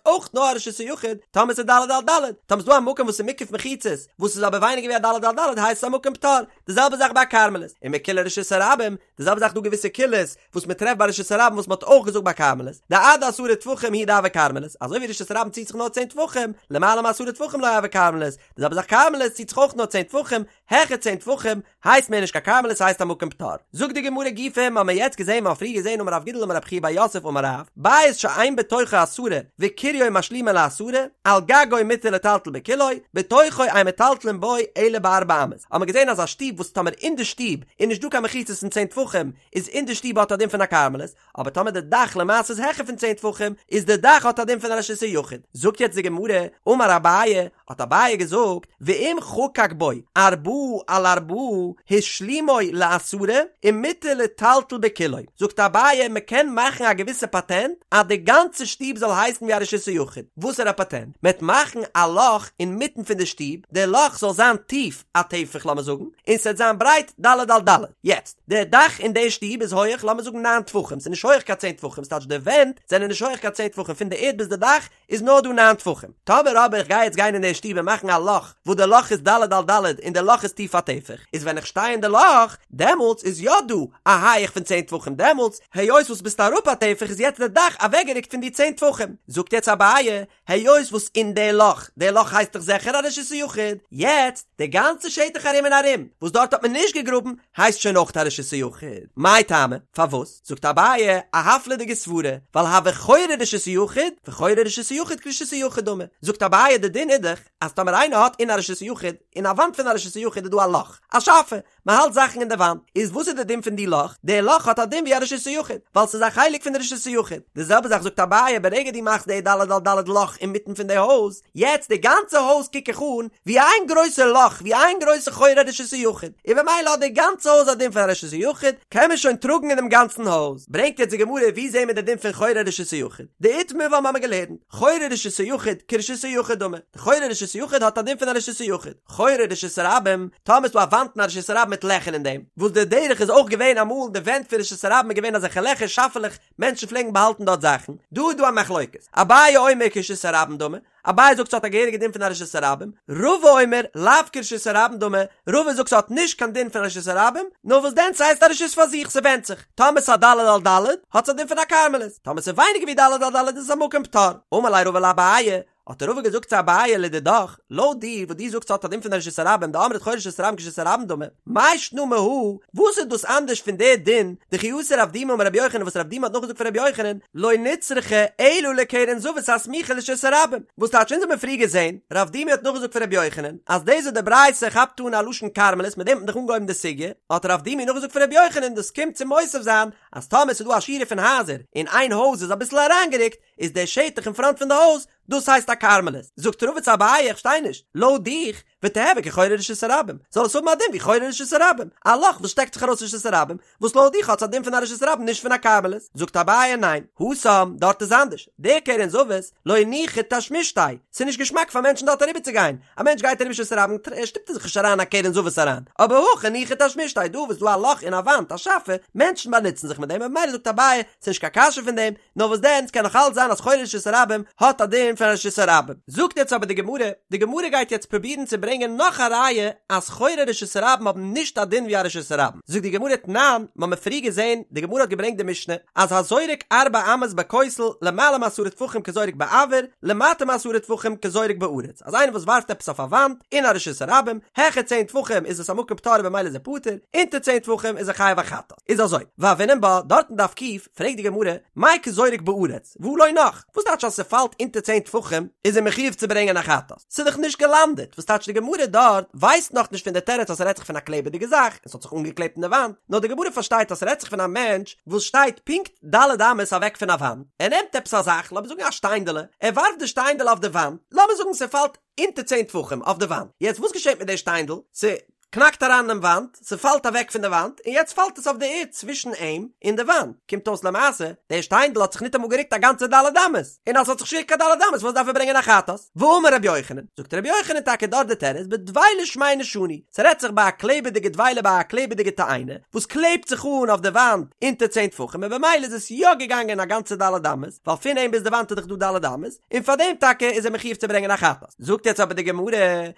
אויך נאר א רשות היחיד טאמער ס'איז ד' על ד', טאמער ס'איז דא א מקום וואס איז מוקף מחיצות וואס איז אבער ווייניגער ווי א ד' על ד' הייסט עס א מקום פטור. די זעלבע זאך ביי כרמלית, ומקולי רשות הרבים, די זעלבע זאך דא געוויסע קולות וואס מען טרעפט ביי רשות הרבים וואס מען האט אויך געזאגט ביי כרמלית, דעד עשרה טפחים הוא דהוי כרמלית, אזוי ווי רשות הרבים ציט זיך נאר צען טפחים, למעלה מעשרה טפחים לא הוי כרמלית, די זעלבע זאך כרמלית ציט זיך אויך נאר צען טפחים, העכער צען טפחים הייסט מער נישט קיין כרמלית ס'הייסט א מקום פטור. זאגט די גמרא גופא, מ'האמיר יעצט געזען מ'האט פריער געזען אמר רב גידל אמר רב חייא בר יוסף אמר רב, בית שאין בתוכו עשרה וקיריו משלימו לעשרה, על גגו מותר לטלטל בכולו, בתוכו אין מטלטלין בו אלא בארבע אמות. האמיר געזען אז א שטוב וואס טאמער אין די שטוב איז נישט דא קיין מחיצות פון צען טפחים איז אין די שטוב האט א דין פון א כרמלית, אבער טאמער די דאך למעשה איז העכער פון צען טפחים איז די דאך האט א דין פון א רשות היחיד. זאגט יעצט די גמרא, אמר אביי, האט אביי געזאגט, ואם חקק בו ארבעה על ארבעה השלימו לעשרה ומותר לטלטל בכולו, זאגט אביי מען קען מאכן א געוויסע פאטענט אז די גאנצע שטוב זאל הייסן ווי א רשות היחיד, וואסערע פאטענט? מען וועט מאכן א לאך אינמיטן פון די שטוב, די לאך זאל זיין טיף א טפח לאמיר זאגן, און ס'וועט זיין ברייט ד' על ד', יעצט, די דאך אין די שטוב איז הויעך לאמיר זאגן ניין טפחים, ס'איז נישט הויעך קיין צען טפחים, ס'טייטש די ווענט זענען נישט הויעך קיין צען טפחים פון די ערד ביז די דאך איז נאר דא ניין טפחים, טאמער אבער איך גיי יעצט גיין אין די שטוב און מאכן א לאך וואס די לאך איז ד' על ד' און די לאך איז טיף א טפח, איז ווען איך שטיי אין די לאך דעמאלטס איז יא דא א הייעך פון צען טפחים דעמאלטס היות וואס ביסט אראפ א טפח איז יעצט די דאך אוועקגערוקט פון די צען טפחים, זאגט יעצט אביי היות וואס אין די לאך, די לאך הייסט דאך זיכער א רשות היחיד, יעצט די גאנצע שטח ארום און ארום וואס דארט האט מען נישט געגראבן הייסט שוין אויך א רשות היחיד, מאי טעמא? פארוואס? זאגט אביי א הפלא'דיגע סברה, ווייל הוי חורי רשות היחיד, וחורי רשות היחיד כרשות היחיד דמי, זאגט אביי די דין איז דאך אז טאמער איינער האט אין א רשות היחיד, אין א וואנט פון א רשות היחיד איז דא א לאך, א שאפע, מען האלט זאכן אין די וואנט, איז וואס איז די דין פון די לאך? די לאך האט א דין ווי א רשות היחיד, ווייל ס'איז א חלק פון די רשות היחיד. די זעלבע זאך זאגט אביי, ברגע דו מאכסט די ד' על ד' לאך אינמיטן פון די הויז, יעצט די גאנצע הויז קוק איך אן ווי איין גרויסע לאך, ווי איין גרויסע חורי רשות היחיד, און במילא האט די גאנצע הויז א דין פון א רשות היחיד, קען מען שוין טראגן אינעם גאנצן הויז. ברענגט יעצט די גמרא ווי זעהן מיר די דין פון חורי רשות היחיד? דאיתמר ווייל מ'האמיר געלערנט, חורי רשות היחיד כרשות היחיד דמי, די חורי רשות היחיד האט א דין פון א רשות היחיד. חורי רשות הרבים, טאמער איז דא א וואנט אין א רשות הרבים מיט לעכער אין דעם, וואס די דרך איז אויך געווען אמאל די ווענט פון רשות הרבים איז געווען אזעלכע לעכער שאפעלעך מענטשן פלעגן באהאלטן דארט זאכן, דא איז דא א מחלוקת, אביי אומר כרשות הרבים דמי, אביי זאגט ס'האט א געהעריגע דין פון א רשות הרבים, רבא אומר לאו כרשות הרבים דמי, רבא זאגט ס'האט נישט קיין דין פון א רשות הרבים, נאר וואס דען ס'הייסט א רשות פאר זיך ס'ווענדט זיך, טאמער ס'איז א ד' על ד' האט עס א דין פון א כרמלית, טאמער ס'איז ווייניגער ווי ד' על ד' איז עס א מקום פטור, אמר ליה רבא לאביי, האט רבא געזאגט צו אביי לדידך, לויט דיר וואס דו זאגסט ס'האט א דין פון רשות הרבים דאמרת חורי רשות הרבים כרשות הרבים דמי, מאי שנא מהא, וואס איז דאס אנדערש פון די דין דכי אתא רב דימי אמר רבי יוחנן וואס רב דימי האט נאכגעזאגט פון רבי יוחנן, לא נצרכה אלא לקרן זווית הסמוכה לרשות הרבים, וואס טייטש אונז האבן פריער געזען, רב דימי האט נאכגעזאגט פון רבי יוחנן, אז דאס וואס די ברייתא כאפט אן א לשון כרמלית מיט דעם האט מען דאך אנגעהויבן די סוגיא, האט רב דימי נאכגעזאגט פון רבי יוחנן דאס קומט צו מוסיף זיין אז טאמער ס'איז דא א שורה פון הייזער און איין הויז איז אביסל אריינגערוקט, איז דער שטח אין פראנט פון די הויז, דאס הייסט א כרמלית. זאגט רבא צו אביי איך פארשטיי נישט, לויט דיך, ותיהוי כחורי רשות הרבים, זאל עס האבן א דין ווי חורי רשות הרבים, א לאך וואס שטעקט זיך ארויס רשות הרבים, וואס לויט דיך האט עס א דין פון א רשות הרבים נישט פון א כרמלית. זאגט אביי ניין, התם, דארט איז אנדערש, דער קרן זווית, לא ניחא תשמישתיה, ס'איז נישט געשמאק פאר מענטשן דארט אריבער צו גיין, א מענטש גייט אריבער רשות הרבים שטופט ער זיך נישט אריין א קרן זווית אריין, אבער הכא ניחא תשמישתיה, דא וואס איז דא א לאך אין א וואנט, א שאפע, מענטשן באנוצן זיך מיט דעם, ממילא זאגט אביי, ס'איז נישט קיין קשיא פון דעם, נאר וואס דען, ס'קען נאך אלץ זיין אז חורי רשות הרבים האט א דין פון רשות הרבים. זאגט יעצט אבער די גמרא, די גמרא גייט יעצט פרובירן צו ברענגען נאך א ראיה אז חורי רשות הרבים האבן נישט א דין ווי א רשות הרבים. זאגט די גמרא תנן, מ'האמיר פריער געזען, די גמרא האט געברענגט די משנה, אז הזורק ארבע אמות בכותל למעלה מעשרה טפחים כזורק באויר, למטה מעשרה טפחים כזורק בארץ, אז איינער וואס ווארפט עפעס אויף א וואנט, אין א רשות הרבים, העכער צען טפחים איז עס א מקום פטור במילא איז ער פטור, אונטער צען טפחים איז ער חייב א חטאת. איז אזוי, והוינן בה, דארט אין דף ק', פרעגט די גמרא, מאי כזורק בארץ, והא לא נח, וואס טייטש אז ס'פאלט אונטער צען טפחים איז ער מחיוב צו ברענגען א חטאת? ס'איז דאך נישט געלאנדעט, וואס טייטש די גמרא דארט ווייסט נאכנישט פון די תירוץ אז ס'רעדט זיך פון א קלעבעדיגע זאך און ס'האט זיך אנגעקלעבט אין די וואנט, נאר די גמרא פארשטייט אז ס'רעדט זיך פון א מענטש וואס שטייט פונקט ד' אמות אוועק פון א וואנט, ער נעמט עפעס א זאך, לאמיר זאגן א שטיינדעלע, ער ווארפט די שטיינדעלע אויף די וואנט, לאמיר זאגן ס'פאלט אונטער צען טפחים אויף די וואנט, יעצט וואס געשעט מיט די שטיינדל? ס'. קנאקט אריין אינעם וואנט, ס'פאלט אוועק פון די וואנט, און יעצט פאלט עס אויף די ערד צווישן אים און די וואנט, קומט אויס למעשה, דער שטיינדל האט זיך ניטאמאל גערוקט א גאנצע ד' אמות, און אז ס'האט זיך נישט גערוקט קיין ד' אמות וואס דארף ער ברענגען א חטאת? ואמר רבי יוחנן, זאגט רבי יוחנן טאקע דארט די תירוץ בדבילה שמנה שנו, ס'רעדט זיך ביי א קלעבעדיגע דבילה ביי א קלעבעדיגע תאנה, וואס קלעבט זיך אן אויף די וואנט אונטער צען טפחים און במילא איז עס יא געגאנגען א גאנצע ד' אמות, ווייל פון אים ביז די וואנט איז דאך דא ד' אמות, און פארדעם טאקע איז ער מחיוב צו ברענגען א חטאת. זאגט יעצט אבער די גמרא,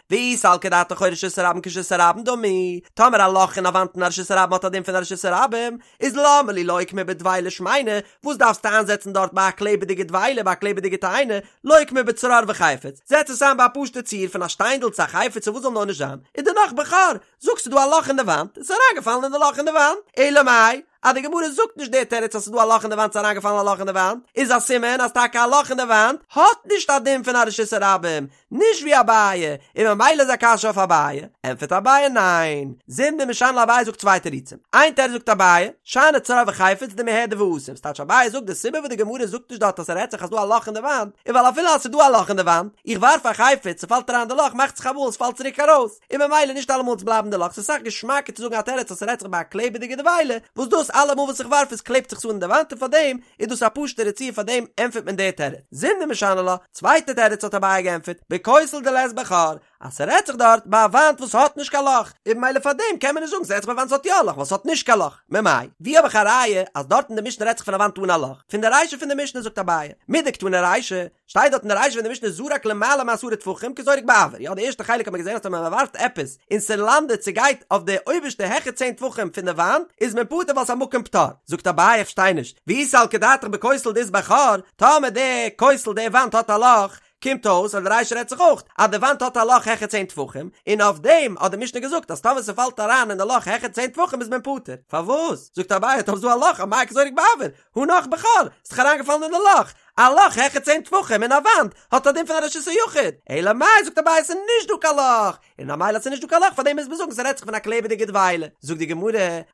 ואי סלקא דעתך חורי רשות הרבים כרשות הרבים דמי. דמי, טאמער א לאך אין א וואנט אין א רשות הרבים האט א דין פון א רשות הרבים, איז למה לי לוקמה בדבילה שמנה, וואס דארפסטו איינזעצן דארט ביי א קלעבעדיגע דבילה ביי א קלעבעדיגע תאנה, לוקמה בצרור וחפץ, זעץ עס איין ביי א פשוטע ציור פון א שטיינדל צו א חפץ צו וואס זאל נאר נישט זיין, און דערנאך בחור, זאג ס'איז דא א לאך אין די וואנט, עס איז אריינגעפאלן אין די לאך אין די וואנט, אלא מאי, אז די גמרא זאגט נישט די תירוץ אז ס'איז דא א לאך אין די וואנט ס'איז אריינגעפאלן א לאך אין די וואנט, איז א סימן אז טאקע א לאך אין די וואנט האט נישט א דין פון א רשות הרבים, נישט ווי אביי, און ממילא איז א קשיא אויף אביי, ענטפערט אביי ניין, זימנין משני לה אביי זאגט צוויי תירוצים, איין תירוץ זאגט אביי, שאני צרור וחפץ דמיהדר ואתי, ס'טייטש אביי זאגט די סיבה וואס די גמרא זאגט נישט דארט אז ס'רעדט זיך אז ס'דא א לאך אין די וואנט, איז ווייל אפילו אז ס'דא א לאך אין די וואנט, איך ווארף א חפץ, ס'פאלט אריין אין די לאך, מאכט זיך אמאל ס'פאלט צוריק ארויס, און ממילא נישט אלעמאל וועט עס בלייבן די לאך, ס'איז אסאך געשמאקער צו זאגן א תירוץ אז ס'רעדט זיך ביי א קלעבעדיגע דבילה, וואס דאס אלעמאל וואס איך ווארף עס קלעבט זיך עס אן אין די וואנט און פארדעם איז דאס א פשוטערע ציור פארדעם ענטפערט מען די תירוץ. זימנין משני לה, צווייטע תירוץ האט אביי געענטפערט, בכותל דלית ביה חור, אז ס'רעדט זיך דארט ביי א וואנט וואס האט נישט קיין לאך, און ממילא פארדעם קען מען נישט זאגן ס'רעדט זיך ביי א וואנט וואס האט יא א לאך ווייל ס'האט נישט קיין לאך, ממאי? ווי האב איך א ראיה אז דארט אין די משנה רעדט זיך פון א וואנט אן א לאך? פון די רישא פון די משנה זאגט אביי, מדקתני רישא, שטייט דארט אין די רישא פון די משנה זרק למעלה מעשרה טפחים כזורק באויר, יא די ערשטע חלק האט מען געזען אז טאמער מען ווארפט עפעס און ס'לאנדעט ס'גייט אויף די אויבערשטע העכער צען טפחים פון די וואנט איז מען פטור ווייל ס'איז א מקום פטור, זאגט אביי איך פארשטיי נישט, ואי סלקא דעתך בכותל דאית ביה חור, טאמער די כותל די וואנט האט א לאך, קומט אויס אז די רישא רעדט זיך אויך אז די וואנט האט א לאך העכער צען טפחים, און אויף דעם האט די משנה געזאגט אז טאמער ס'פאלט אריין אין די לאך העכער צען טפחים איז מען פטור, פארוואס? זאגט אביי טאמער ס'איז דא א לאך אמאי כזורק באויר, הא נח בחור, ס'איז דאך אריינגעפאלן אין די לאך, א לאך העכער צען טפחים אין א וואנט האט א דין פון א רשות היחיד, אלא מאי זאגט אביי ס'איז נישט דא קיין לאך, און ממילא אז ס'איז נישט דא קיין לאך פארדעם מוז מען זאגן ס'רעדט זיך פון א קלעבעדיגע דבילה, זאגט די גמרא,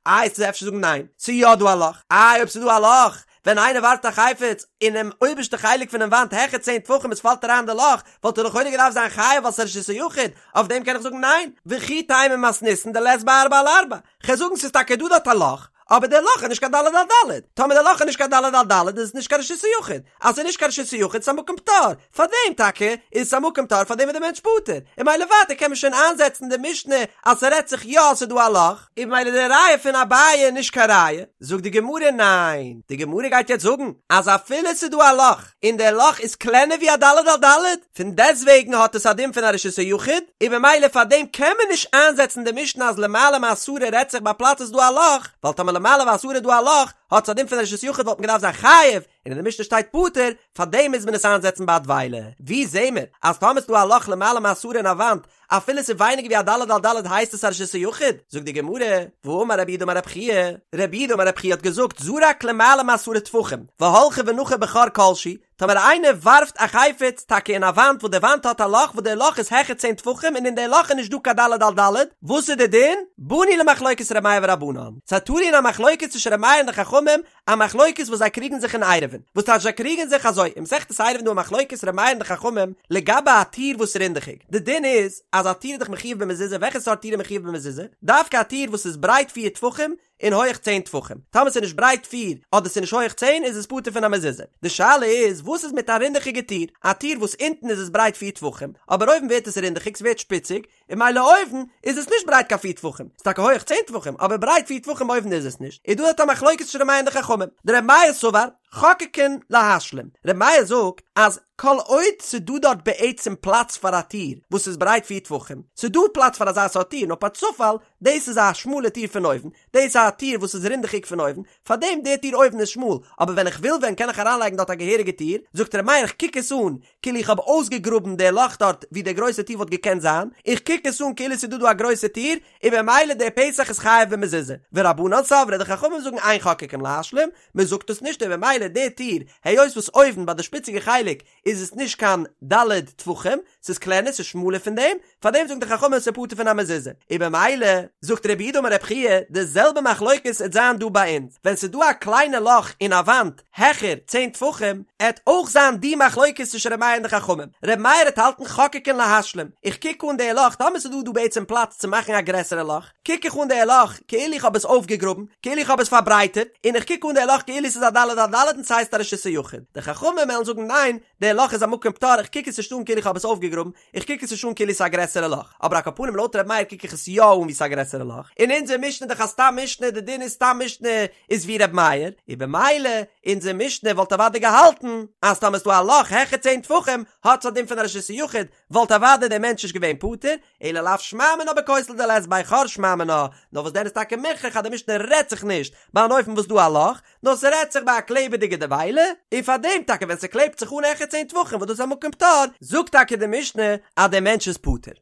איי וועסטו אפשר זאגן ניין, ס'איז יא דא א לאך, איי אויב ס'איז דא א לאך, ווען איינער ווארפט א חפץ אינעם אויבערשטע חלק פונעם וואנט העכער צען טפחים עס פאלט אריין אין די לאך, וואלט ער לכאורה געדארפט זיין חייב ווייל ס'איז רשות היחיד, אויף דעם קען איך זאגן ניין, וכי תימא מתניתין דלית בה ארבעה על ארבעה, כ'וועל זאגן ס'איז טאקע דא דארט א לאך, אבער דער לאך איז נישט קיין ד' על ד', טאמער דער לאך איז נישט קיין ד' על ד' איז עס נישט קיין רשות היחיד, אז ס'איז נישט קיין רשות היחיד איז עס א מקום פטור, פארדעם טאקע איז עס א מקום פטור פארדעם איז דער מענטש פטור, און ממילא ווייטער קען מען שוין איינזעצן די משנה אז ס'רעדט זיך יא אז ס'איז דא א לאך, און ממילא די ראיה פון אביי איז נישט קיין ראיה, זאגט די גמרא ניין, די גמרא גייט יעצט זאגן אז אפילו ס'איז דא א לאך און דער לאך איז קלענער ווי א ד' על ד', פון דעסטוועגן האט עס א דין פון א רשות היחיד, און ממילא פאר דעם קען מען נישט איינזעצן די משנה אז למעלה מעשרה רעדט זיך ביי פלאץ איז דא א לאך, ווייל טאמער למעלה מעשרה איז דא א לאך, האט עס א דין פון א רשות היחיד וואלט מען געדארפט זיין חייב, און אין די משנה שטייט פטור, פאר דעם מוז מען עס איינזעצן ביי א דבילה. ווי זעהן מיר אז טאמער איז דא א לאך למעלה מעשרה אין א וואנט, אפילו ס'איז ווייניגער ווי א ד' על ד' הייסט עס א רשות היחיד? זאגט די גמרא, והאמר רב יהודה אמר רב חייא, רב יהודה אמר רב חייא האט געזאגט זרק למעלה מעשרה טפחים, והלכה ונחה בחור כלשהו, טאמער איינער ווארפט א חפץ טאקע אין א וואנט וואס די וואנט האט א לאך וואס די לאך איז העכער צען טפחים און אין די לאך איז נישט דא קיין ד' על ד', וואס איז די דין? באנו למחלוקת ר' מאיר ורבנן, ס'איז תלוי אין א מחלוקת צווישן ר' מאיר און די חכמים, א מחלוקת וואס זיי קריגן זיך אין עירובין, וואס טייטש זיי קריגן זיך אזוי, אין מסכת עירובין דא א מחלוקת ר' מאיר און די חכמים לגבי א טיר וואס איז רינדעכיג, די דין איז אז א טיר איז דאך מחויב במזוזה, וועלכע סארט טיר איז מחויב במזוזה? דווקא א טיר וואס איז ברייט פיר טפחים און הויעך צען טפחים, טאמער ס'איז נישט ברייט פיר אדער ס'איז נישט הויעך צען איז עס פטור פון א מזוזה, די שאלה איז וואס איז מיט א רינדעכיגע טיר, א טיר וואס אונטן איז עס ברייט פיר טפחים אבער אויבן ווערט עס רינדעכיג ס'ווערט שפיציג, און ממילא אויבן איז עס נישט ברייט קיין פיר טפחים, ס'איז טאקע הויעך צען טפחים, אבער ברייט פיר טפחים אויבן איז עס נישט, איז דא דארט א מחלוקת צווישן ר' מאיר און די חכמים, דר' מאיר סבר, חוקקין להשלים, ר' מאיר זאגט אז כל עוד ס'דא דארט בעצם פלאץ פאר א טיר וואס איז ברייט פיר טפחים, ס'דא פלאץ פאר אזא סארט טיר, נאר פארצופאל דאס איז א שמאלע טיר פון אויבן, דאס איז א טיר וואס איז רינדעכיג פון אויבן, פארדעם די טיר אויבן איז שמאל, אבער ווען איך וויל ווען קען איך אריינלייגן דארט א געהעריגע טיר, זאגט ר' מאיר איך קוק עס אן כאילו איך האב אויסגעגראבן די לאך דארט ווי די גרויסע טיר וואלט געקענט זיין, איך קוק עס אן כאילו ס'איז דא דא א גרויסע טיר, און במילא דער פתח איז חייב במזוזה. ורבנן סברי די חכמים זאגן אין חוקקין להשלים, מען זאגט עס נישט און במילא די טיר, היות וואס אויבן ביי די שפיציגע חלק איז עס נישט קיין ד' טפחים, ס'איז קלענער ס'איז שמאלער פון דעם, פאר דעם זאגן די חכמים ס'איז פטור פון א מזוזה. און במילא, זאגט רב יהודה אמר רב חייא, די זעלבע מחלוקת עט זיין דא ביי אונז, ווען ס'איז דא א קליינע לאך אין א וואנט העכער צען טפחים, עט אויך זיין די מחלוקת צווישן ר' מאיר און די חכמים. ר' מאיר עט האלטן חוקקין להשלים, איך קוק אן די לאך, טאמער ס'איז דא דא בעצם פלאץ צו מאכן א גרעסערע לאך, קוק איך אן די לאך כאילו איך האב עס אויפגעגראבן, כאילו איך האב עס פארברייטערט, און איך קוק אן די לאך כאילו ס'איז א ד' על ד' און ס'הייסט א רשות היחיד. די חכמים וועלן זאגן ניין, די לאך איז א מקום פטור, איך קוק עס נישט אן כאילו איך האב עס אויפגעגראבן, איך קוק עס נישט אן כאילו ס'איז א גרעסערע לאך, אבער על כל פנים לויט ר' מאיר קוק איך עס יא אן ווי ס'איז א גרעסערע לאך, און אונזער משנה איז דאך א סתם משנה. משנה, די דין איז סתם משנה איז ווי ר' מאיר, און במילא אונזער משנה וואלט אוודאי געהאלטן אז טאמער ס'דא א לאך העכער צען טפחים האט עס א דין פון א רשות היחיד, וואלט אוודאי דער מענטש נישט געווען פטור, אלא לאו שמע מינה בכותל דלית ביה חור שמע מינה, נאר וואס דען איז טאקע מוכרח אז די משנה רעדט זיך נישט ביי אן אופן וואס דא א לאך, נאר ס'רעדט זיך ביי א קלעבעדיגע דבילה, און פאר דעם טאקע ווען ס'קלעבט זיך אן העכער צען טפחים וואס דאס איז א מקום פטור, זאגט טאקע די משנה אז דער מענטש איז פטור.